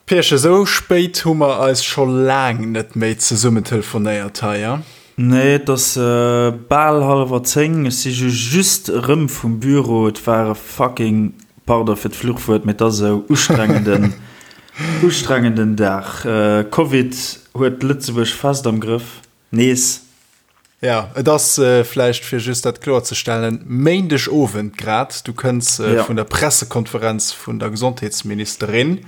Pierchen, esou spéit hu mer eis scho laang net méi zesummen telefonéiert hei, ja? Nee, et ass bal hallwer 10. Ech si ju just erëm vum Büro. Et war e fucking, pardon fir d'Fluchwuert, mee et ass esou, ustrengenden, ustrengenden Dag. Covid huet Lëtzebuerg fest am Grëff. Nees. Ja, et ass vläicht, fir just dat kloerzestellen, Méindeg Owend grad. Du kënns vun der Pressekonferenz vun der Gesondheetsministerin.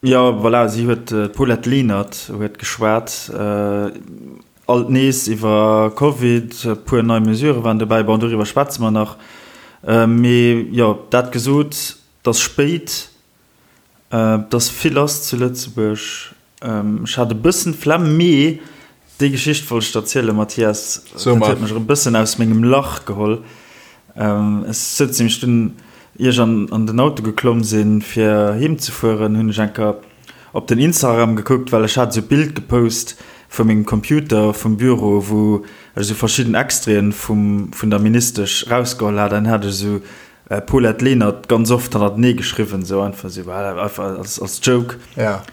Jo, voilà, si huet, d'Paulette Lenert huet geschwat, alt nees iwwer Covid, e puer nei Mesurë waren dobäi. Bon, doriwwer schwätze mer nach. Mee jo, dat gesot, et ass spéit. Et ass vill lass zu Lëtzebuerg. Ech hat e bëssen d'Flemm, mee déi Geschicht wollt ech der erzielen, Mathias. Dat huet mech erëm e bëssen aus mengem Lach geholl. Ech souz nämlech dunn, ier ech an den Auto geklomm sinn, fir heem ze fueren, hunn ech eng Kéier op den Instagram gekuckt, well ech hat esou e Bild gepost vu mengem Computer vum Büro, wou ech esou verschidden Extraiten vum, vun der Ministesch rausgeholl hat. An hat ech esou Paulette Lenert ganz oft hannertenee geschriwwen, sou einfach sou, einfach als, als Joke. Ja.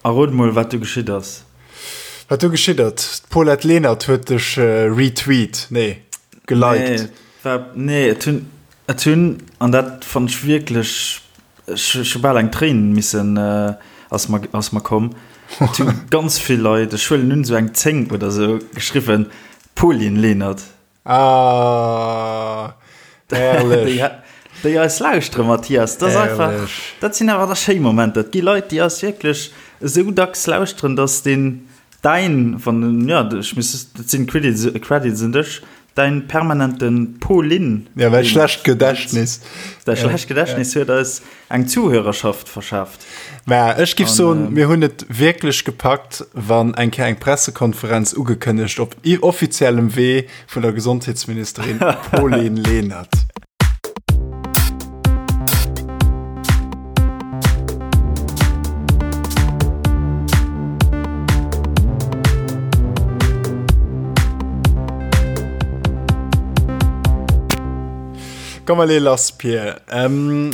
A rot mol, wat du geschitt ass. Wat du geschitt ass? D'Paulette Lenert huet dech retweet, nee, geliked. Nee, war, nee, et hunn, et hunn, an dat fannt ech wierklech, ech, ech hu bal eng Tréin missen, ass mer, ass mer komm. Et hu ganz vill Leit, ech huelen un, sou eng 10 oder sou, geschriwwen, Pauline Lenert. Ah, herrlech. Déi, déi eis lauschtere, Mathias, dat ass einfach, dat sinn awer da schéi Momenter. Et gi Leit, déi eis wierklech esou dacks lauschteren, dass deen däin, wann den, ja, ech muss, dat sinn Credits, Credits un dech, däin permanente Pauline. Ja, mäi schlecht Gedächtnis. Däi schlecht Gedächtnis huet eis eng Zuhörerschaft verschaaft. Mä ech giff soen, mir hunn et wierklech gepackt, wann eng Kéier eng Pressekonferenz ugekënnegt op offiziellem Wee vun der Gesondheetsministerin Pauline Lenert. Komm mer lee lass, Pir.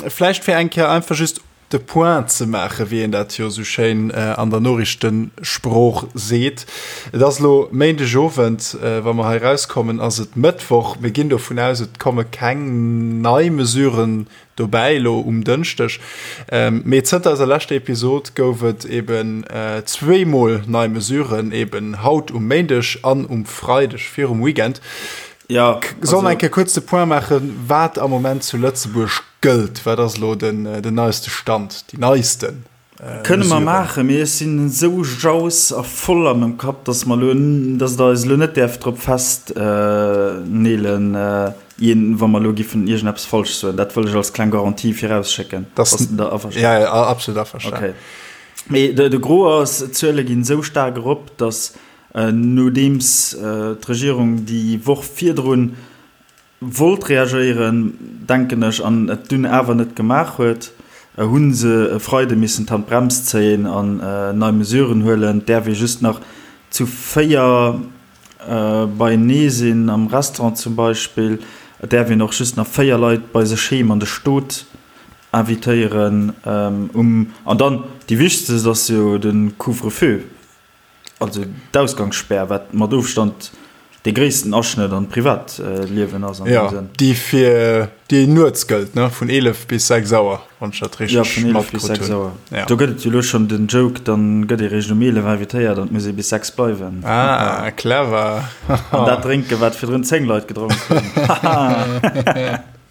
Vläicht fir eng Kéier einfach just de Point ze maachen, wéi een dat jo esou schéin an der Noriichtensprooch seet. Et ass elo Méindegowend, wa mer hei erauskommen, ass et Mëttwoch. Mir ginn dovun aus, et komme keng nei Mesuren dobäi elo um Dënschdeg. Mee zënter eiser leschter Episod gouf et eben zweemol nei Mesuren, eben haut um Méindeg an um Freideg virum Weekend. Ja, Soll mer eng Kéier kuerz de Point maachen, wat am Moment zu Lëtzebuerg gëllt? Wat ass elo den, den neiste Stand, déi neisten Kënne mer maachen, mee ech sinn esou jaus a voll a mengem Kapp, dass mer elo, dass Der eis elo net däerft drop festneelen, wa mer elo giffen iergendeppes falsch soen. Dat wëll ech als kleng Garantie virausschécken. Bass de da averstanen? Ja, ja, absolut averstanen. Okay. Mee de, de Gros ass, d'Zuele ginn esou staark erop, dass Nodeems d'Regierung déi Woch virdrun wollt reagéieren, denken ech, an et dunn awer net gemaach huet, hu se e Freide missen d'Handbrems zéien an nei Mesuren huelen. Et däerf ee just nach zu 4 beienee sinn, am Restaurant zum Beispill. Et däerf een och just nach 4 Leit bei sech heem an de Stot invitéieren. An dann déi wichtegst ass jo de Couvre-feu. Also d'Ausgangsspär, wat mat Ofstand dee gréissten Aschnëtt an d'Privatliewen ass an deem Sënn. Jo, déi fir déi nuets gëllt, ne? Vun 11 bis 6 Auer, wann ech dat richteg matkritt hunn. Jo, vun 11 bis 6 Auer. Ja. Do gëtt et jo elo schonn den Joke, dann gëtt ee réischt um 11 invitéiert an et muss ee bis 6 bleiwen. Ah, clever. An dat drénken, wat virdrun 10 Leit gedronk hunn. Haha.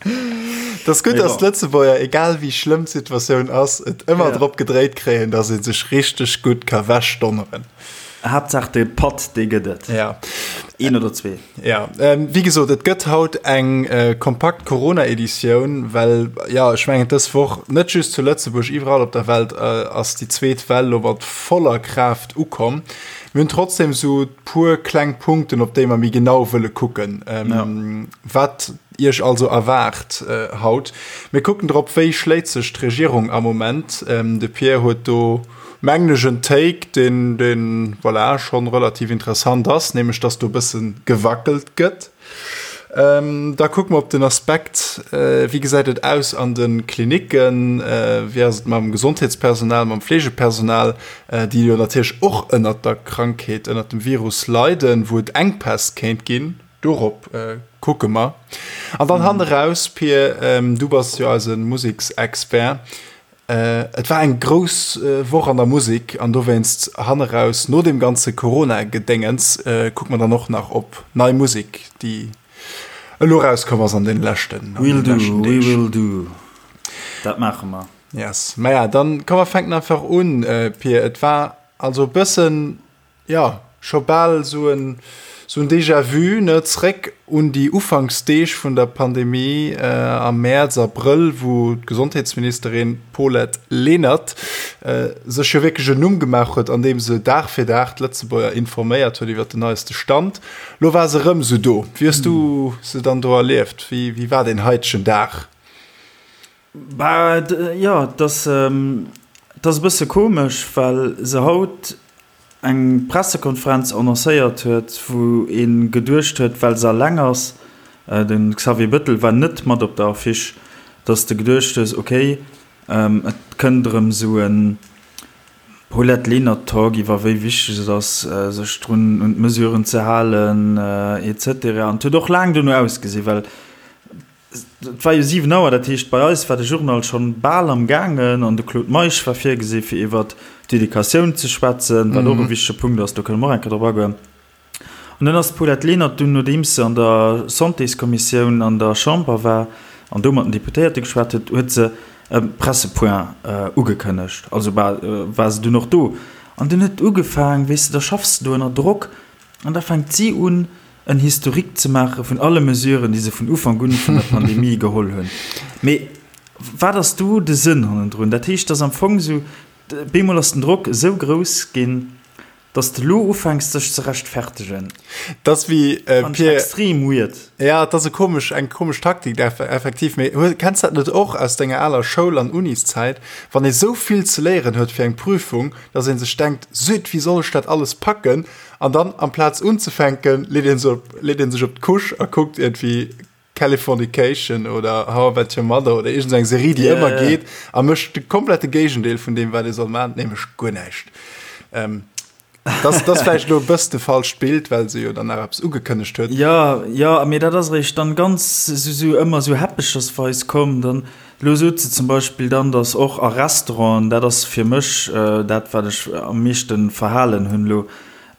Et ass gutt, dass d'Lëtzebuerger, egal wéi schlëmm d'Situatioun ass, et ëmmer drop gedréit kréien, dass ee sech richteg gutt ka wechdonneren. Haaptsaach de Patt, dee gëtt et. Ja. Een oder zwee. Ja, wéi gesot, et gëtt haut eng kompakt Corona-Editioun, well, jo, ech mengen, dës Woch, net just zu Lëtzebuerg, iwwerall op der Welt ass déi zweet Well elo mat voller Kraaft ukomm. Mir hunn trotzdem esou puer kleng Punkten, op déi mer méi genau wëlle kucken. Wat Iech also erwaart haut. Mir kucken drop, wéi schléit sech d'Regierung am Moment. De Pierre huet do, mengen ech, en Take, deen, deen, voilà, schonn relativ interessant ass, nämlech dass do e bësse gewackelt gëtt. Da kucke mer op den Aspekt, wéi gesäit et aus an de Klinicken, wéi ass et mam Gesondheetspersonal, mam Fleegepersonal, déi jo natierlech och ënnert der Krankheet, ënnert dem Virus leiden, wou et Enkpäss kéint ginn. Dorop kucke mer. An dann hanneraus, Pir, du bass jo eise Museksexpert, Et war eng grouss Woch an der Musek an dowéinst hanneraus, no deem ganze Corona-Gedéngens, kucke mer dann och nach op nei Musek, déi elo erauskomm ass an deene leschten We'll do, we will do. Dat maache mer. Yes. Maja, dann komm mer fänken einfach un, Pir. Et war also e bëssen Jo, scho bal esou en esou en Déjà-vu, ne? Zréck un déi Ufanksdeeg vun der Pandemie am Mäerz, Abrëll, wou d'Gesondheetsministerin Paulette Lenert sech jo wierklech en Numm gemaach huet, andeem se Dag fir Dag d'Lëtzebuerger informéiert huet iwwer den neiste Stand. Lo war se erëm esou do. Wéi hues du se dann do erlieft? Wéi wéi war deen haitegen Dag? Bah, jo, et ass, et ass e bësse komesch, well se haut eng Pressekonferenz annoncéiert huet, wou ee geduecht huet, well se alleng ass, de Xavier Bettel war net mat op der Affiche, datt s de geduecht hues, okay, et kënnt erëm esou e Paulette Lenert-Talk iwwer wéi wichteg et ass, sech drun un d'Mesuren ze halen, et cetera. An et huet och laang dono ausgesinn, well Et war jo 7 Auer, dat heescht bei eis war de Journal schonn bal am gaangen an de Claude Meisch war virgesi fir iwwert d'Educatioun ze schwätzen, wat och e wichtege Punkt ass, do kënne mer och eng Kéier drop agoen. An dann ass d'Paulette Lenert dunn, nodeems se an der Santéskommissioun an der Chamber war an do mat den Deputéierte geschwat huet, huet se e Pressepoint ugekënnegt. Also war se dunn och do an dunn huet et ugefaang, weess de, da schaffs de do ënner Drock an da fänkt si un, en Historique ze maache vun alle Mesuren, déi se vun Ufank un vun der Pandemie geholl hunn. Mee wat ass do de Sënn hannendrun? Dat heescht, dass am Fong esou, bemol ass den Drock esou grouss ginn, dass de elo ufänks dech ze rechtfertegen. Dat ass wéi, Fand ech extrem weird. Ja, et ass e komesch, eng komesch Taktik, effektiv. Mee kenns dat net och aus denger aler Schoul an Uniszäit, wann ee sou vill ze léieren huet fir eng Prüfung, dass ee sech denkt, Süd, wéi soll ech dat alles packen? An dann amplaz unzefänken, leet een sech op, leet een sech op d'Couche a kuckt iergendwéi Californication oder How I Met Your Mother oder iergend eng Serie, déi ëmmer geet a mécht de komplette Géigendeel vun deem, wat ee soll maachen, nämlech guer näischt. Ähm, dat ass vläicht elo e bëss de falscht Bild, well se jo dann nach eppes ugekënnegt huet. Jo, jo, mee dat ass eréischt dann ganz esou, esou ëmmer esou häppechersweis komm. Dann, elo sot se zum Beispill dann, datt och a Restauranten, dat ass fir mech dat, wat ech am meeschte verhalen hunn elo,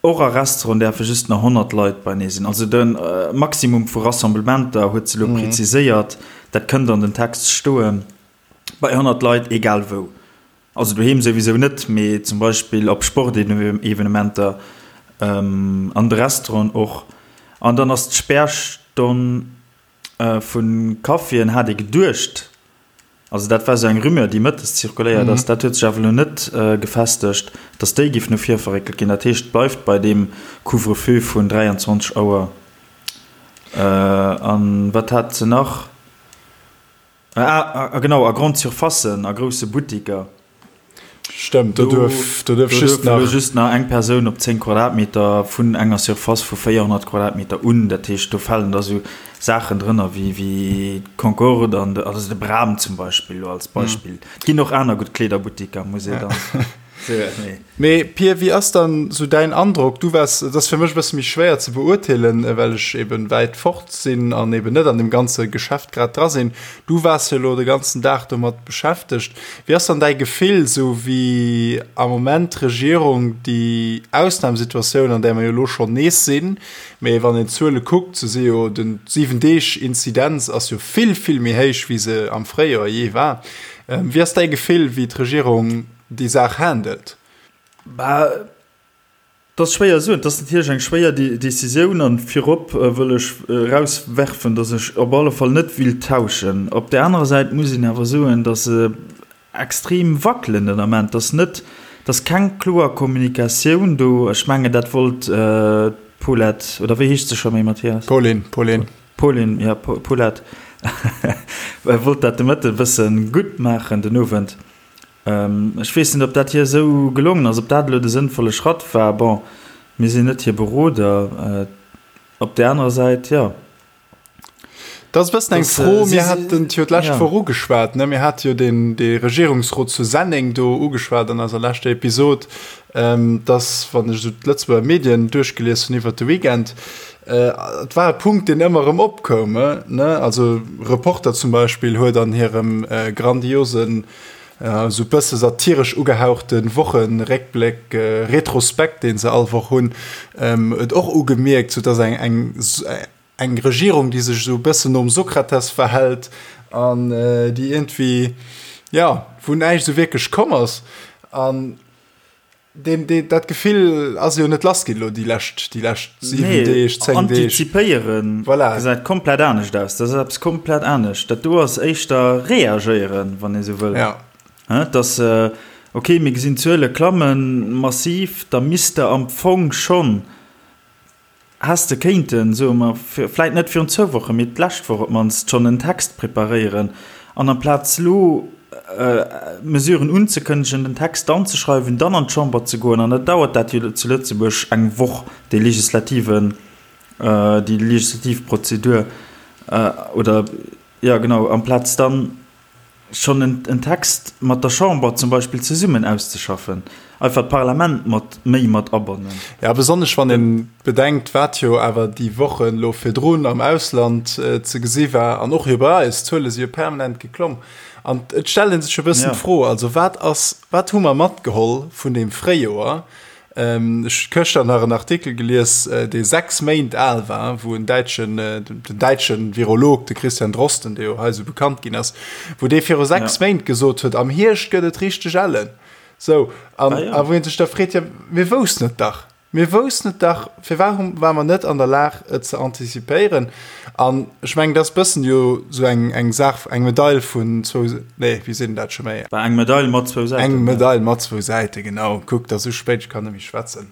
Och a Restauranten däerfe just nach 100 Leit beinee sinn. Also de Maximum vu Rassemblementer huet se elo preziséiert, dat kënnt an den Text stoen, bei 100 Leit, egal wou. Also doheem souwisou net, mee zum Beispill op Sportevenementer, an de Restauranten och. An dann ass d'Spärstonn vu Caféen, hat ee geduecht, Also dat war esou eng Rumeur, déi mëttes zirkuléiert ass. Dat huet sech awer elo net gefestegt, datt déi géif no vir verréckelt ginn. Dat heescht, et bleift bei deem Couvre-feu vun 23 Auer. A wat hat se nach? Ah, genau, a Grande Surfacen, a grousse Buttiker. Stëmmt, do duerf, do duerf just nach. Just nach eng Persoun op 10 Quadratmeter vun enger Surface vu 400 Quadratmeter un. Dat heescht, do falen da sou Saachen drënner wéi, wéi d'Concorde an de, also de Bram zum Beispill, elo als Beispill. Et ginn och aner gutt Kleederbuttiker, muss ee dann soen. Mee Pir, wéi ass dann sou däin Androck? Du waars, et ass fir mech e bësse méi schwéier ze beurteelen, well ech eben wäit fort sinn an eben net an deem ganze Geschäft grad dra sinn. Du waars jo elo de ganzen Dag domat beschäftegt. Wéi ass dann däi Gefill, sou wéi am Moment d'Regierung déi Ausnamsituatioun, an där mer jo elo schonn nees sinn, mee wann een d'Zuele kuckt, sou si jo den Siwen-Deeg-Inzidenz ass jo vill, vill méi héich, wéi se am Fréijoer jee war. Wéi ass däi Gefill, wéi d'Regierung déi Saach handelt? Bah, Et ass schwéier soen. Et ass natierlech eng schwéier Decisioun an virop wëll ech erauswerfen, datt ech op alle Fall net willt tauschen. Op där anerer Säit muss een awer soen, datt se extrem wackelen den Ament, datt net, datt keng kloer Kommunikatioun do, ech mengen dat wollt d'Paulette, oder wéi heescht se scho méi, Mathias? Pauline, Pauline. Pauline, jo, Paulette wollt dat de Mëtte e bësse gutt maachen den Owend. Ech weess net, ob dat hir esou gelongen ass, ob dat elo de sënnvolle Schratt war. Bon, mir sinn net hir Beroder. Op där anerer Säit, jo. Dat ass e bëssen eng Fro, mir haten et jo d'lescht Woch ugeschwat, ne? Mir hate jo deen, dee Regierungsrot zu Senneng do ugeschwat an eiser leschter Episod, dass, wann ech esou d'Lëtzebuerger Medien duerchgelies hunn iwwert de Weekend, et war e Punkt, deen ëmmer erëm opkoum, ne? Also Reporter zum Beispill huet an hirem grandiosen, esou e bësse satiresch ugehauchte Wochenréckbléck, Retrospekt, dee se all Woch hunn, et och ugemierkt, sou dass eng, eng, eng Regierung, déi sech esou e bëssen nom Sokrates verhält an déi iergendwéi, jo, wou näischt esou wierklech komm ass. An deen, deen, dat Gefill ass jo net lass ginn elo déi lescht, déi lescht 7 Nee, Deeg, 10 Deeg. Antizipéieren Voilà. gesäit komplett anescht aus. Dat ass eppes komplett anescht. Dat do ass éischter reagéieren, wann ee sou wëll. Ja. Hä, dass, okay, mir gesinn d'Zuele klammen massiv, da misst Der am Fong schonn Häss de kéinten, soe mer, vläit net virun zwou Wochen, mee d'lescht Woch op d'mannst schonn en Text preparéieren an amplaz elo Mesuren unzekënnegen, den Text dann ze schreiwen, dann an d'Chamber ze goen, an da dauert dat jo zu Lëtzebuerg eng Woch, dee legislativen, déi legislativ Prozedur, oder, jo genau, amplaz dann schonn en Text mat der Chamber zum Beispill zesummen auszeschaffen, einfach d'Parlament mat méi mat abannen. Jo, besonnesch wann ee bedenkt, wat jo awer déi Wochen elo virdrun am Ausland ze gesi war an och jo bei eis, d'Zuele si jo permanent geklomm. An et stellt ee sech e bëssen d'Fro, also wat ass, wat hu mer matgeholl vun deem Fréijoer, Ech hu gëschter nach en Artikel gelies, dee 6 Méint al war, wou en däitschen, den däitsche Virolog, de Christian Drosten, dee jo hei esou bekannt ginn ass, wou dee viru 6 Méint gesot huet, am Hierscht gëtt et richteg ellen. Sou, an a wou ee sech da freet, jo, mir woussten et dach, mir woussten et dach, firwat hu ware mer net an der Lag, et ze antizipéieren? An ech mengen, dat ass bëssen jo sou eng, eng Saach, eng Medail vun zwou, nee, wéi seet een dat scho méi? Bah, eng Medail mat zwou Säiten. Eng Medail mat zwou Säiten, genau. Kuck, et ass esou spéit, ech kann net méi schwätzen.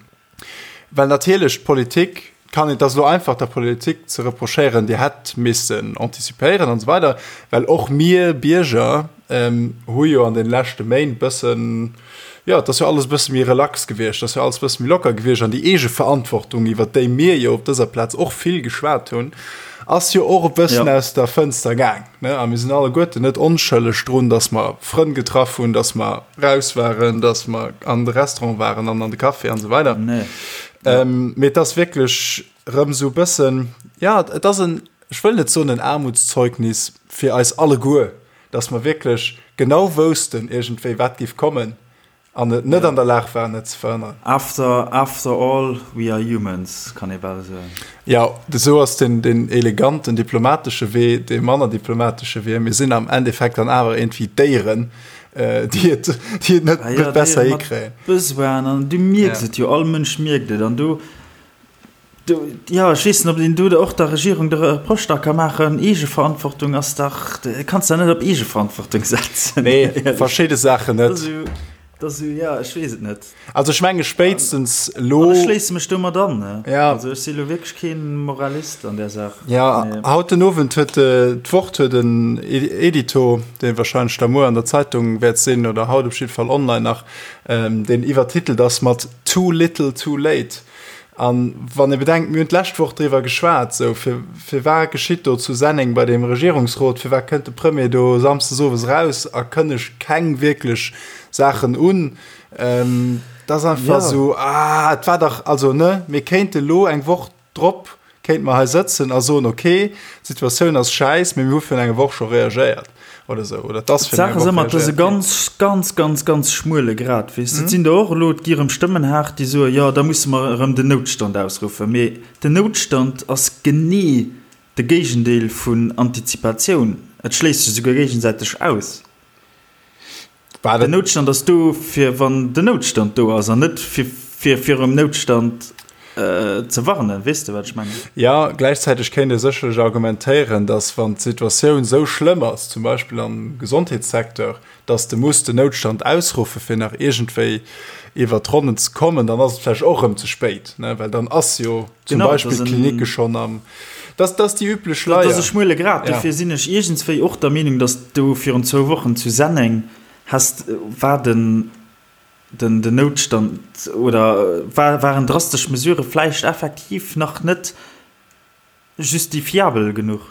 Well natierlech d'Politik kann, et ass elo einfach der Politik ze reprochéieren, Dir hätt missen antizipéieren an esou weider, well och mir Bierger hu jo an de leschte Méint bëssen, jo, et ass jo alles e bësse méi relax gewiescht, et ass jo alles e bësse méi locker gewiescht an déi Eegeverantwortung, iwwert déi mir jo op dëser Plaz och vill geschwat hunn, ass jo och e bëssen aus der Fënster gaang, ne? A mir sinn alleguerten net onschëlleg drun, dass mer Frënn getraff hunn, dass mer raus waren, dass mer an de Restaurant waren an an de Café an esou weider. Mee et ass wierklech erëm esou e bëssen, jo, et ass en, ech wëll net soen en Aarmutszeugnis fir eis alleguer, dass mer wierklech genau woussten iergendwéi wat géif kommen an et net an der Lag waren et ze verhënneren. After, after all, we are humans, kann ee bal soen. Jo, esou ass den, den eleganten diplomatesche Wee, dee manner diplomatesche Wee. Mir sinn am Endeffekt dann awer iergendwéi Déieren, déi et, déi et net, net besser hikréien. Besoinen an du mierks et jo, all Mënsch mierkt et an do, Do, jo, ech weess net, ob een do och der Regierung de Reproche da ka maachen. Eegeverantwortung ass dach, kanns der net op Eegeverantwortung setzen. Nee, verschidde Saachen net. Dat ass esou, jo, ech weess et net. Also ech menge spéitstens elo. An ech schléisse mech domat an, ne? Ja. Also ech si elo wierklech kee Moralist an där Saach. Ja, haut den Owend huet d'Wort huet en Edito, dee wahrscheinlech da muer an der Zeitung wäert sinn oder haut op jidde Fall online nach, deen iwwertitelt ass mat Too little, too late. An wann ee bedenkt, mir hunn d'lescht Woch driwwer geschwat, esou, fir, firwat geschitt do zu Senneng bei deem Regierungsrot, firwat kënnt de Premier do samsdes owes eraus a kënnegt keng wierklech Saachen un, dat ass einfach esou, ah, et war dach, also, ne, mir kéinte lo eng Woch drop kéinte mer hei sëtzen a soen, okay, d'Situatioun ass schäiss, mee mir hu virun enger Woch scho reagéiert. Oder esou, oder et ass virun enger D'Saach ass Woch ëmmer, et ass e reagéiert ginn. ganz, ganz, ganz, ganz schmuele Grat, weess de. Et sinn der och elo, et gi erëm Stëmmen haart, déi soen, jo, da musse mer erëm den Noutstand ausruffen. Mee den Noutstand ass genee de Géigendeel vun Antizipatioun. Et schléisst sech esouguer géigesäiteg aus. Den Noutstand ass do, fir wann den Noutstand do ass, an net fir fir virum Noutstand ze warnen. Weess de, wat ech mengen? Jo, gläichzäiteg kéint ee sécherlech argumentéieren, datt wann d'Situatioun esou schlëmm ass, zum Beispill am Gesondheetssecteur, datt de muss den Noutstand ausruffe fir nach iergendwéi iwwert d'Ronnen ze kommen, dann ass et vläicht och erëm ze spéit, ne, well dann ass jo zum Beispill d'Klinicke schonn am, dat ass déi üblech Leier. Dat ass e schmuele Grat. Dofir sinn ech iergendswéi och der Meenung, datt do virun zwou Wochen zu Senneng häss, war den, den, den Noutstand oder war, waren drastesch Mesurë vläicht effektiv nach net justifiabel genuch.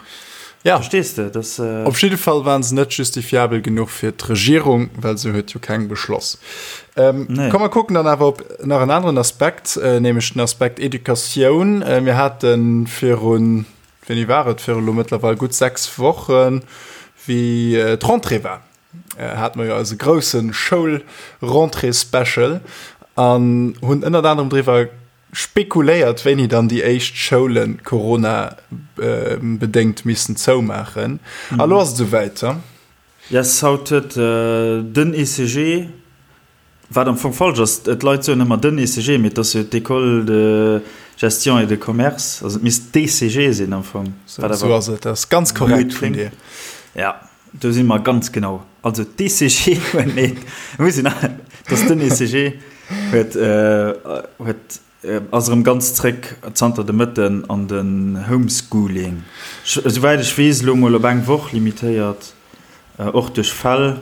Ja. Verstees de? Das, äh Op jidde Fall waren se net justifiabel genuch fir d'Regierung, well se huet jo keng beschloss. Ähm, nee. Komm mer kucken dann awer op nach en aneren Aspekt, äh, nämlech den Aspekt Educatioun. Äh, mir haten virun, wéini war et, viru lo mëttlerweil gutt 6 Wochen, wéi äh, d'Rentrée war, äh, hate mer jo eise grousse Schoul-Rentrée-Special an hunn ënnert anerem driwwer Spekuléiert, wéini dann déi éischt Schoule Corona-bedéngt missten zoumaachen. A lo ass et esouwäit. Yes, haut huet den ECG, wat am Fong falsch ass, d'Leit soen ëmmer den ECG, mee et ass jo d'École de gestion et de commerce, also et misst d'ECG sinn am Fong. Esou ass et, dat ass ganz korrekt vun dir. Ja, do si mer ganz genau. Also d'ECG huet, nee, muss een, et ass den ECG. Huet huet ass erëm ganz zréck zanter de Mëtten an den Homeschooling. Esouwäit ech weess elo mol op eng Woch limitéiert, och duerch Fäll,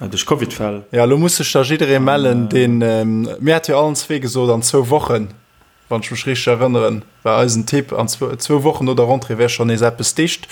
duerch Covid-Fäll. Jo, elo muss sech da jidderee mellen, deen, mir hate jo allen zwee gesot an zwou Wochen Wann ech mech richteg erënneren, war eisen Tipp, an zwou Wochen no der Rentrée wär schonn nees eppes dicht.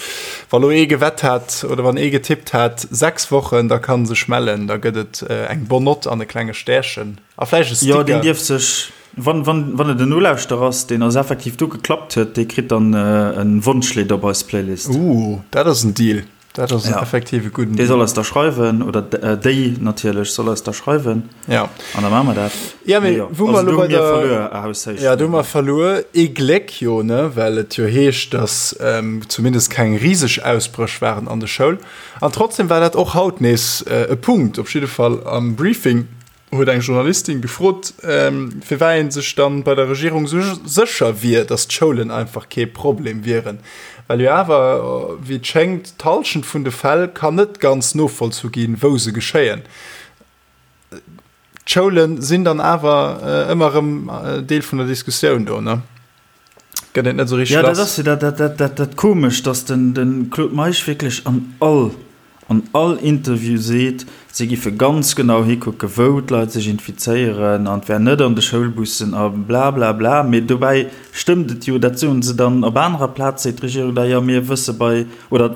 Wa lo ee gewett hat oder wann ee getippt hat 6 Wochen, da kann sech mellen, da gëtt et eng bonne Note an e klenge Stärchen a vläicht e Sticker. Jo, deen dierf sech, wann, wann, wann et en Nolauschterer ass, deen eis effektiv do geklappt huet, dee kritt dann e Wonschlidd op eis Playlist. Ooh, dat ass en Deal. Dat ass ja. effektiv e gudden Dee soll eis da schreiwen oder déi natierlech soll eis da schreiwen. Ja. An da maache mer dat. Ja, mee jo. Wou mer elo bei der verluer, ja, do hu mer verluer. Ee Gléck jo, ne, well et jo heescht, dass ähm, zumindest keng riseg Ausbréch waren an de Schoul. An trotzdem war dat och haut nees äh, e Punkt, op jidde Fall am Briefing huet eng Journalistin gefrot, firwat ee sech dann bei der Regierung esou sécher wier, datt d'Schoulen einfach kee Problem wieren. Well jo awer, wéi et schéngt, d'Hallschent vun de Fäll kann net ganz novollzu ginn, wou se geschéien. D'Schoule sinn dann awer ëmmer erëm Deel vun der Diskussioun do, ne? Gëtt een et net esou richteg lass. Jo, dat ass jo dat, dat Komescht, datt de Claude Meisch wierklech an all an all Interview seet, si giffe ganz genau hikucke wou d'Leit sech infizéieren an et wär net an de Schoulbussen a blablabla. Mee dobäi stëmmt et jo, dat soen se dann op anerer Plaz, seet d'Regierung da, jo mir wësse bei, oder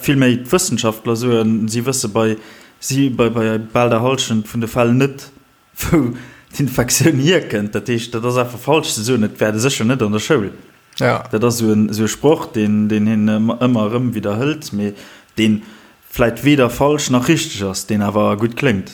villméi d'Wëssenschaftler soen, si wësse bei si bei bal der Hallschent vun de Fäll net, wou d'Infektioun hierkënnt. Dat heescht, dat ass einfach falsch ze soen, et wär sécher net an der Schoul. Ja. Dat ass esou en, esou e Sproch, deen, deen hien ëmmer erëm widderhëlt, mee dee vläit weder falsch nach richteg ass, deen awer gutt kléngt.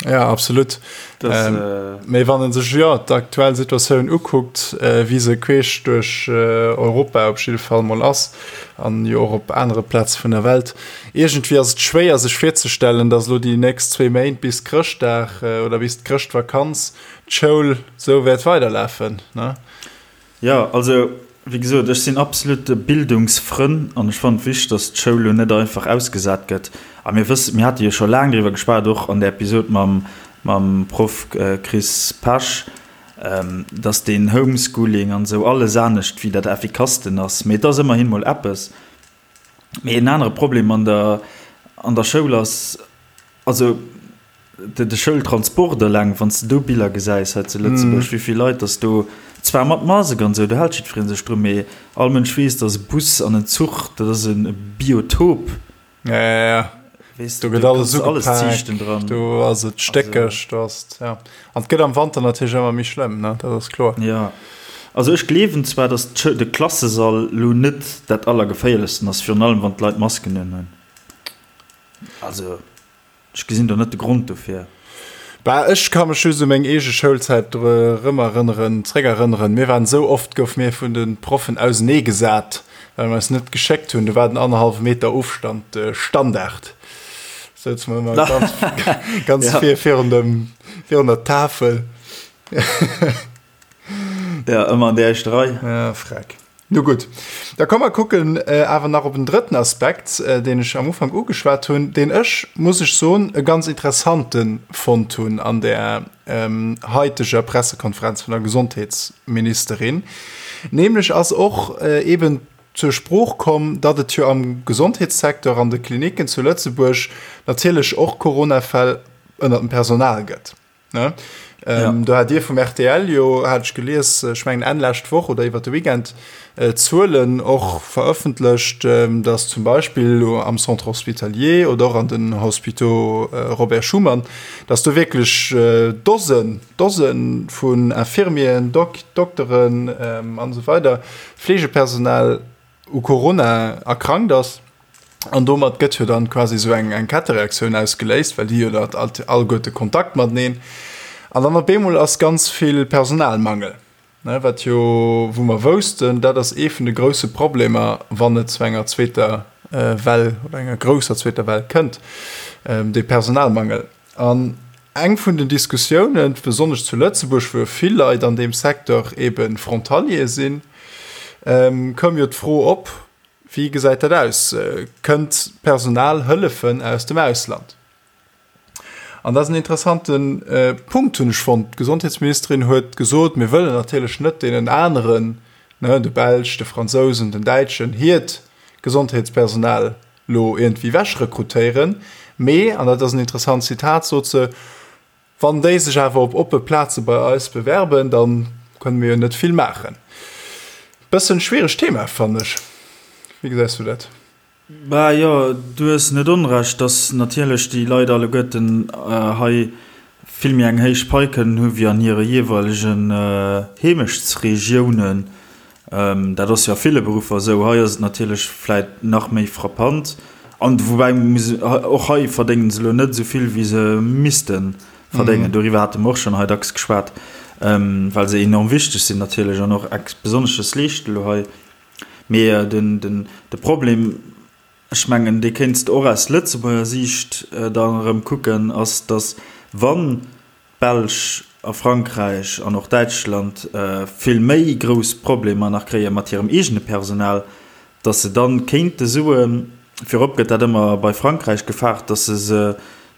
Ja, absolut. Das, ähm, äh, mee wann en sech jo d'aktuell Situatioun ukuckt, äh, wéi se queesch duerch äh, Europa op jidde Fall mol ass an jo och op anere Plaze vun der Welt, Iergendwéi ass et schwéier sech virzestellen, datt elo déi nächst zwéi Méint bis Chrëschtdag oder bis d'Chrëschtvakanz d'Schoul sou wäert weiderlafen, ne? Jo, also wéi gesot, ech sinn absolut Bildungsfrënn an ech fannen et wichteg, datt d'Schoul elo net einfach ausgesat gëtt. A mir wëssen, mir hate jo scho laang driwwer geschwat, och an der Episod mam mam Proff Chris Pesch, datt deen Homeschooling an esou alles anescht wéi dat Effikassten ass. Mee et ass ëmmerhin mol eppes. Mee en anere Problem an der, an der Schoul ass, also de, de Schoultransport eleng, wann s de do Biller gesäis hei zu Lëtzebuerg, wéi vill Leit dass do, zwar mat Masek an esou, do hält jiddweree sech drun, mee all Mënsch weess, dass e Bus an en Zuch, dat ass e Biotop. Ja, ja, ja. Weess Do gëtt alles ugepaakt, do ass et stéckeg, do ass et, ja. An et gëtt am Wanter natierlech ëmmer méi schlëmm, ne, dat ass kloer. Ja, also ech gleewen zwar, datt de Klassesall lo net dat Allergeféierlechsten ass, virun allem wann d'Leit Masken unhunn. Also ech gesinn do net de Grond dofir. Bah, ech ka mech just u meng eege Schoulzäit erëmerënneren, zréckerënneren. Mir waren esou oft, goufe mir vun de Proffen auseneegesat, well mir eis net geschéckt hunn. Do war den annerhallwe Meter Ofstand de Standard. Souze mer ëmmer ganz, ganz Ja. vir, virun dem, virun der Tafel. Ja, ëmmer an der éischter Rei. Ja, freck. Nu gutt, da komm mer kucken awer nach op en drëtten Aspekt, deen ech am Ufank ugeschwat hunn, deen ech, muss ech soen, e ganz interessante fonnt hunn an där haiteger Pressekonferenz vun der Gesondheetsministerin. Nämlech ass och eeben zur Sprooch komm, datt et jo am Gesondheetssecteur, an de Klinicken zu Lëtzebuerg natierlech och Coronafäll ënnert dem Personal gëtt. Do hat Dir vum rtl jo, hat ech gelies, ech mengen Enn lescht Woch oder iwwer de Weekend, Zuelen och verëffentlecht, datt zum Beispill elo am Centre hospitalier oder och an den Hôpitaux Robert Schuman, datt do wierklech Dosen, Dose vun Infirmieren, Dokteren an esou weider, Fleegepersonal u Corona erkrankt ass. An domat gëtt jo dann quasi esou eng eng Kettereaktioun ausgeléist, well déi jo dat alleguerte Kontakt mateneen. An dann op eemol ass ganz vill Personalmangel, ne, wat jo, wou mer woussten, dat ass ee vun de grousse Problemer, wann et zu enger zweeter Well oder enger grousser zweeter Well kënnt, dee Personalmangel. An eng vun den Diskussiounen, besonnesch zu Lëtzebuerg, wou jo vill Leit an deem Secteur eebe Frontalier sinn, koum jo d'Fro op, Wéi gesäit dat aus? Kënnt Personal hëllefen aus dem Ausland? An dat ass en interessante Punkt, hunn ech fonnt. D'Gesondheetsministerin huet gesot, mir wëllen natierlech net deenen aneren, ne, de Belsch, de Fransousen, den Däitschen, hiert Gesondheetspersonal lo iergendwéi ewechrekrutéieren. Mee, an dat ass en interessant Zitat, sot se, Wann déi sech awer op oppe Plaze bei eis bewerben, da kënne mir jo net vill maachen. Bëssen schwieregt Thema, fannen ech. Wéi gesäis du dat? Bah jo, du hues net onrecht, dass natierlech déi Leit alleguerten hei vill méi eng héich Pai kënnen hu wéi an hire jeeweilegen Heemechtsregiounen. Dat ass jo a ville Beruffer esou. Hei ass et natierlech vläit nach méi frappant. An woubäi muss, och hei verdéngen se elo net esou vill, wéi se misste verdéngen. Doriwwer hate mer och schonn hei dacks geschwat, well se enorm wichteg sinn natierlech an och ex Besonnesches leeschten elo hei. Mee de Problem, ech mengen, dee kéints de och aus Lëtzebuerger Siicht dann erëm kucken, ass, datt wann d'Belsch a Frankräich an och Däitschland vill méi grouss Problemer nach kréie mat hirem eegene Personal, datt se dann kéinte soen, virop gëtt dat ëmmer bei Frankräich gefaart, datt se se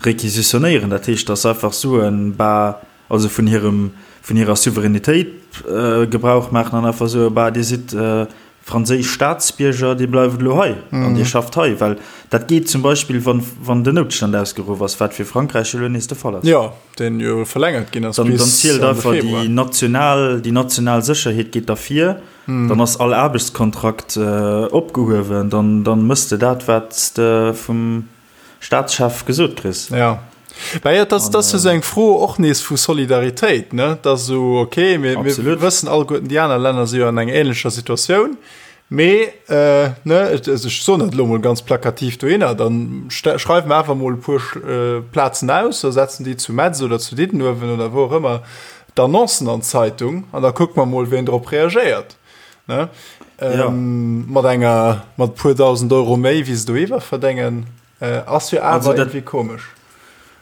réquisitionnéieren, dat heescht, datt se einfach soen, bah, also vun hirem, vun hirer Souveränitéit Gebrauch maachen an einfach soen, bah, Dir sidd franséisch Staatsbierger, Dir bleift elo hei an Dir schafft hei, well dat geet zum Beispill, wann, wann den Noutstand ausgeruff ass, wat fir Frankräich elo nees de Fall ass. Jo, deen jo verlängert ginn ass bis Ende Februar. Dann zielt einfach déi national, déi national Sécherheet geet da vir, dann ass all Aarbechtskontrakt opgehuewen, dann, dann mëss de dat, wat s de vum Staatschef gesot kriss. Ja. Bah ja, das, das ist eng Fro och nees vu Solidaritéit, ne? Dat so okay, mir, mir wëssen alleguerten, déi aner Länner si jo an enger ähnlecher Situatioun. Mee äh, ne, also ech soen dat elo mol ganz plakativ dohinner, dann schreiwe mer awer mol e puer äh, Plazen aus, da setzen déi zu Metz oder zu Diddenuewen oder wou och ëmmer d'Annoncen an d'Zeitung an da kucke mer mol, wien drop reagéiert. Ne? Ähm, ja. Mat enger mat puer dausend Euro méi wéi se do iwwer verdéngen, äh, ass jo awer irgendwie komesch.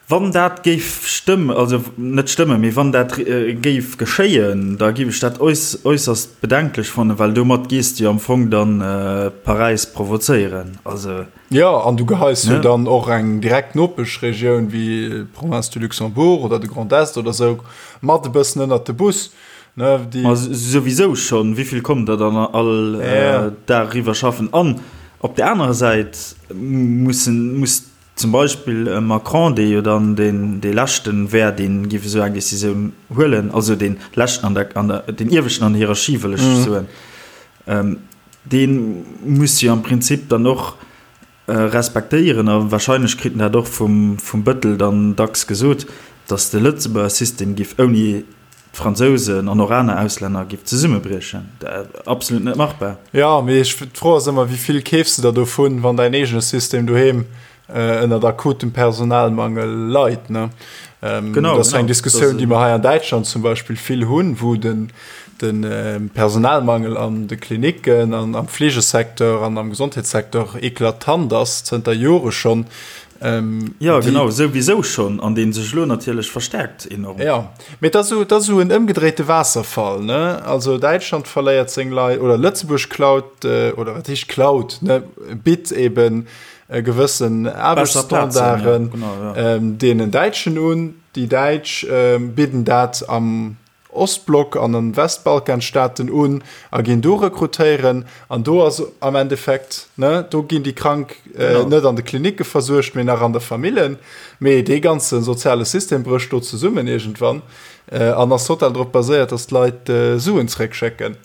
Wann dat géif stëmmen, also net stëmmen, mee wann dat äh, géif geschéien, da géif ech dat äuss, äusserst bedenklech fannen, well domat gees de jo am Fong dann äh, Paräis provozéieren. Also, Ja, an du geheis jo dann och eng direkt Nopeschregioun wéi d'Province du Luxembourg oder de Grand Est oder sou mat e bëssen ënnert de Bus. Ne, déi Ma souwisou schonn, wéi vill kommen der dann all ja. Dag eriwwer schaffen? An op der anerer Säit mussen, muss zum Beispill e Macron, dee jo dann deen, dee leschten wär, dee géif esou eng Decisioun huelen, also dee leschten an der, an der, deen ieweschten an der Hierarchie, wëll ech soen, dee muss jo am Prinzip dann och respektéieren, a wahrscheinlech kritt en dat och vum, vum Bëttel dann dacks gesot, datt de Lëtzebuerger System giff ouni d'Fransousen an och aner Auslänner giff zesummebriechen. Absolut net machbar. Jo, mee ech, d'Fro ass ëmmer, wéi vill keefs de der dovun, wann däin eegene System doheem ënnert akutem Personalmangel leit, ne? Genau, dat ass eng Diskussioun, déi mer hei an Däitschland zum Beispill vill hunn, wou den, de Personalmangel an de Klinicken an am Fleegesecteur an am Gesondheetssecteur eklatant ass, zënter Jore schonn. Jo, genau, souwisou schonn, an dee sech elo natierlech verstärkt enorm. Jo, mee et ass esou, et ass esou en ëmgedréite Waasserfall, ne? Also Däitschland verléiert seng Leit, oder Lëtzebuerg klaut, oder wat heescht klaut, ne, bitt eben gewëssen Aarbechtsstandarden deenen Däitschen un. Déi Däitsch bidden dat am. Ostblock an an Westbalkanstaaten un a ginn do rekrutéieren. An do ass am Endeffekt, ne, do ginn déi Krank net an de Klinicke versuergt, mee nach an der Famillen. Mee dee ganze soziale System brécht do zesummen iergendwann an ass total drop baséiert, dass d'Leit Suen zréckschécken.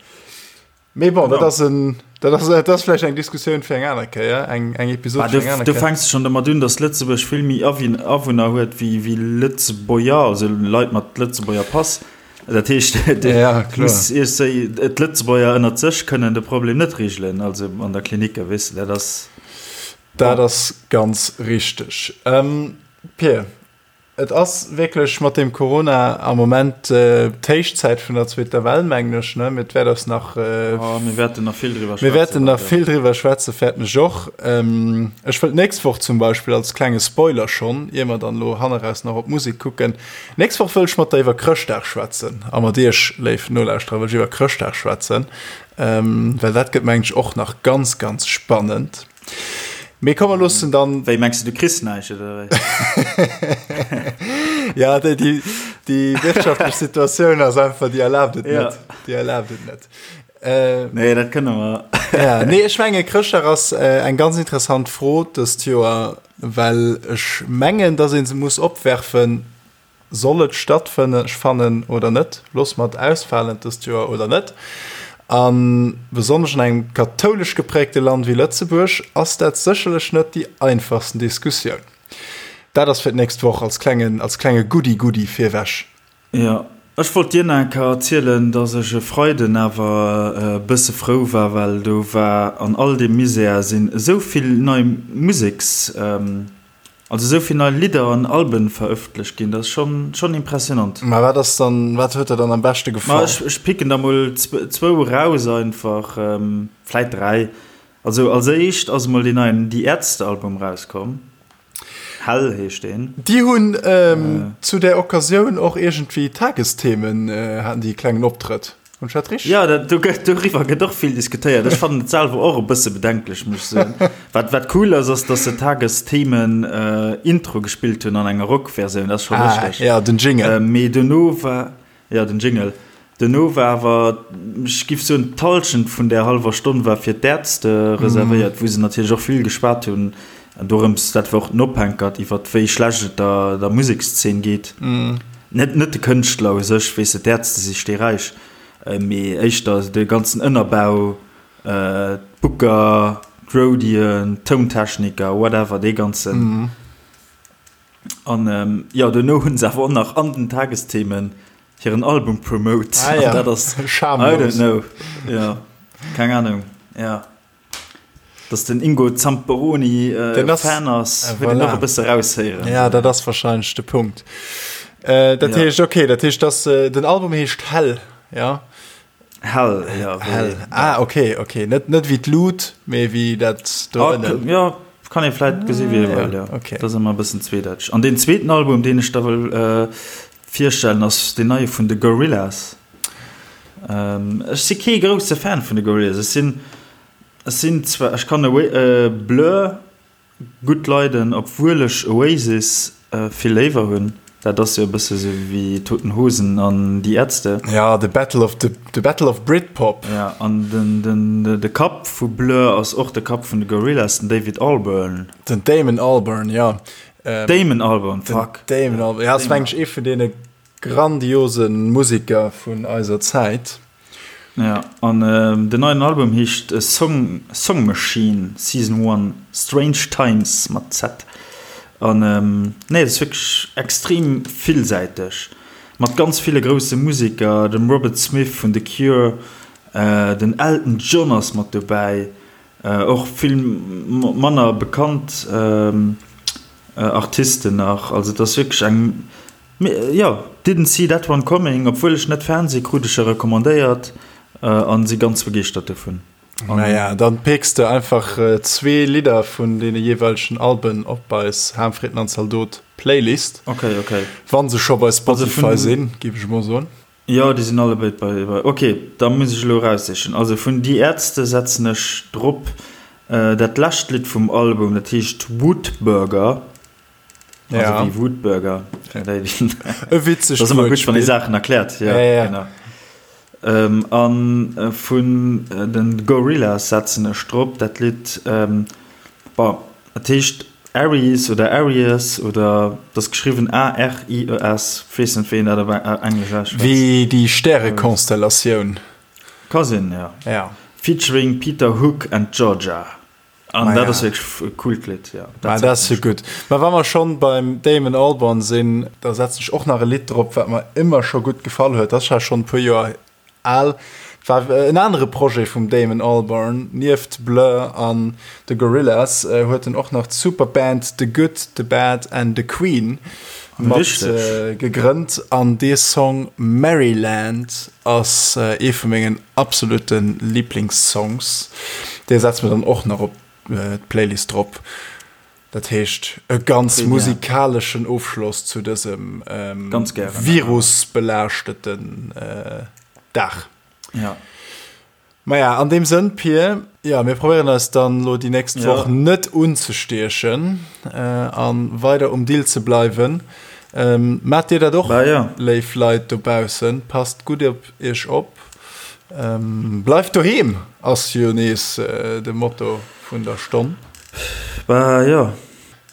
Mee bon, dat ass en, dat ass, dat ass vläicht eng Diskussioun fir eng aner Kéier, eng, eng Episod fir eng aner Kéier. Do fänks de schonn domat un, dass Lëtzebuerg vill méi Awunner huet wéi, wéi Lëtzebuerger, also Leit mat Lëtzebuerger Pass. Dat heescht, ja, muss d'Lëtzebuerger ënnert sech kënnen de Problem net regelen, also an der Klinik, weess de, dat ass. Dat ass ganz richteg. Pir, et ass wierklech mat deem Corona am Moment d'Héichzäit vun der zweeter Well, mengen ech, ne? Mee et wäert eis nach. Oh, mir wäerten nach vill driwwer schwätzen. Mir wäerten nach vill driwwer schwätzen, fäerten ech och. Ech wëll d'nächst Woch zum Beispill als klenge Spoiler schonn, ier mer dann elo hanneraus nach op d'Musek kucken, Nächst Woch wëll ech mat der iwwer Chrëschtdag schwätzen a mat iech, léif Nolauschterer, wëll ech iwwer Chrëschtdag schwätzen, well dat gëtt, mengen ech, och nach ganz, ganz spannend. Mee komm, mer loossen dann. Wéi, mengs de, du kriss näischt, oder wéi? Ja, déi, déi, déi wirtschaftlech Situatioun ass einfach, déi erlaabt et net. Déi erlaabt et net. Äh, nee, dat kënne mer. ja, nee, ech menge Chrëschtdag ass äh, eng ganz interessant Fro dëst Joer, well ech mengen, dass een se muss opwerfen, soll et stattfënne fannen oder net, loosse mer et ausfalen dëst Joer oder net. A besonnesch an engem kathoulesch geprägte Land wéi Lëtzebuerg ass dat sécherlech net déi einfachsten Diskussioun. Dat ass fir d'nächst Woch als klengen, als klenge Goodie-Goodie virwech. Jo, ech wollt dir nach eng Kéier erzielen, dass ech e Freiden awer e bësse frou war, well do war an all deem Misär sinn esou vill nei Museks, also esou vill nei Lidder an Alben verëffentlecht ginn, dat ass schonn, schonn impressionant. Mä wat ass dann, wat huet der dann am beschte gefall? Ma ech, ech picken der mol zwou eraus einfach, vläit 3. Also als éischt ass emol deen neien Die Ärzte Album rauskomm. Hell heescht deen. Déi hunn zu där Occasioun och iergendwéi Tagesthemen, haten déi e klengen Optrëtt. Hunn ech dat richteg? Jo, dat, do gëtt, doriwwer gëtt och vill diskutéiert. Ech fannen et selwer och e bësse bedenklech, muss ech soen. Wat, wat cool ass, ass, datt se Tagesthemen Intro gespillt hunn an enger Rockversioun. Dat ass scho richteg. Ah, jo, den Jingle. Mee dono war. Jo, den Jingle. Duerno war awer, ech giff soen, d'Halschent vun där hallwer Stonn war fir d'Ärzte reservéiert, wou se natierlech och vill geschwat hunn dorëms, dat war och den Ophänkert, iwwer wéi schlecht et der der Musekszeen geet. Net net de Kënschtler u sech, weess de, d'Ärzte si steeräich, mee éischter de ganzen Ënnerbau, d'Booker, d'Roadien, d'Tountechniker, whatever, dee ganzen. An jo, duerno hunn se awer och nach an den Tagesthemen hiren Album promote. Ah, ja. An dat ass, Schamlos. I don't know. Ja, keng Ahnung. Ja. Dass den Ingo Zamperoni äh, Den ass- Fan ass, Äh, huet een voilà. och e bësse raushéieren. Ja, dat ass wahrscheinlech de Punkt. Äh, dat Ja. heescht, okay, dat heescht, dass, äh, den Album heescht Hell, ja. Hell, ja. Wéi, Hell. Ah, okay, okay. Net, net wéi d'Lut, mee wéi dat do Ah, ënnen. ja, kann ee vläit gesi wéi ee wëll, ja. Okay. Dat ass ëmmer e bëssen zweedeiteg. An deen zweeten Album, deen ech da wëll äh, virstellen, ass deen neie vun de Gorillaz. Ähm, ech si kee grousse Fan vun de Gorillaz. Ech sinn, ech sinn zwar, ech kann Away, äh, Blur Gutt leiden, obwuel ech Oasis vill léiwer hunn. Dat ass jo e bësse sou wéi Toten Hosen an Die Ärzte. Ja, the battle of the, the battle of Britpop. Ja, an den, den, de Kapp vu Blur ass och de Kapp vun de Gorillaz, den David Albarn. Den Damon Albarn, ja. Damon Albarn, fuck. Den Damon Albarn, ja, ass mengen ech ee vun deene grandiose Museker vun eiser Zäit. Ja, an den neien Album heescht Song Song Machine Season One Strange Times mat Z. An nee, dat ass wierklech extrem villsäiteg, mat ganz ville grousse Museker, dem Robert Smith vun The Cure, den Elton John ass mat dobäi, och vill manner bekannt Artisten nach. Also et ass wierklech eng Jo, didn't see that one coming, obwuel ech net Fan si krut ech e recommandéiert an si ganz begeeschtert dovun. Naja, dann picks de einfach zwee Lidder vun deene jeeweilegen Alben op eis Ham, Fritten an Zaldot Playlist. Ok, ok. Wann se scho bei Spotify sinn, géif ech emol soen. Jo, déi sinn allebéid bei, bei. Ok, da muss ech elo eraussichen. Also vun Die Ärzte setzen ech drop dat lescht Lidd vum Album, dat heescht Woodburger. Also wéi Wutbürger. E witzegt Dat ass ëmmer gutt, wann ee Saachen erkläert. Ja, genau. A vun de Gorillaz setzen ech drop dat Lidd, bon, et heescht Aries oder Aries oder et ass geschriwwen A-R-I-E-S, weess net, wéi een dat op Englesch ausschwätzt. Wéi déi Stärekonstellatioun. Ka sinn, jo. Featuring Peter Hook and Georgia. An dat ass wierklech e coolt Lidd, jo. Ma dat ass jo gutt. Ma wa mer schonn beim Damon Albarn sinn, da setzen ech och nach e Lidd drop, wat mer ëmmer scho gutt gefall huet. Dat ass scho schonn e puer Joer al. War en anere Projet vum Damon Albarn. Nieft Blur an The Gorillaz huet en och nach d'Superband The Good, The Bad and The Queen mat gegrënnt. An dee Song Maryland Ass ee vu mengen absolute Lieblingssongs. Dee setze mer dann och nach op d'Playlist drop. Dat heescht e ganz musikaleschen Ofschloss zu dësem virusbelaaschteten Dag. Maja, an deem Sënn, Pir, jo, mir probéieren eis dann elo déi nächst Woch net unzestiechen a weider um Dill ze bleiwen. Maacht Dir dat och, léif Leit dobaussen? Passt gutt op Iech op. Bleift doheem ass jo nees de Motto vun der Stonn. Bah jo,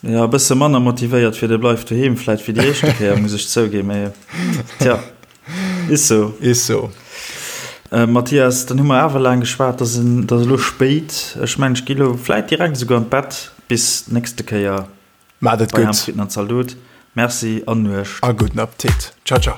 Jo, e bësse manner motivéiert fir de Bleif doheem vläit wéi déi éischte Kéier, muss ech zouginn, mee tja, is sou. Is sou. Mathias, dann hu mer awer laang geschwat, et ass elo spéit. Ech mengen, ech gi elo vläit direkt esouguer an d'Bett. Bis d'nächste Kéier Maacht et bei gutt. Ham, Fritten an Zaldot. Merci an Nuecht. A gudden Appetit. Ciao, ciao.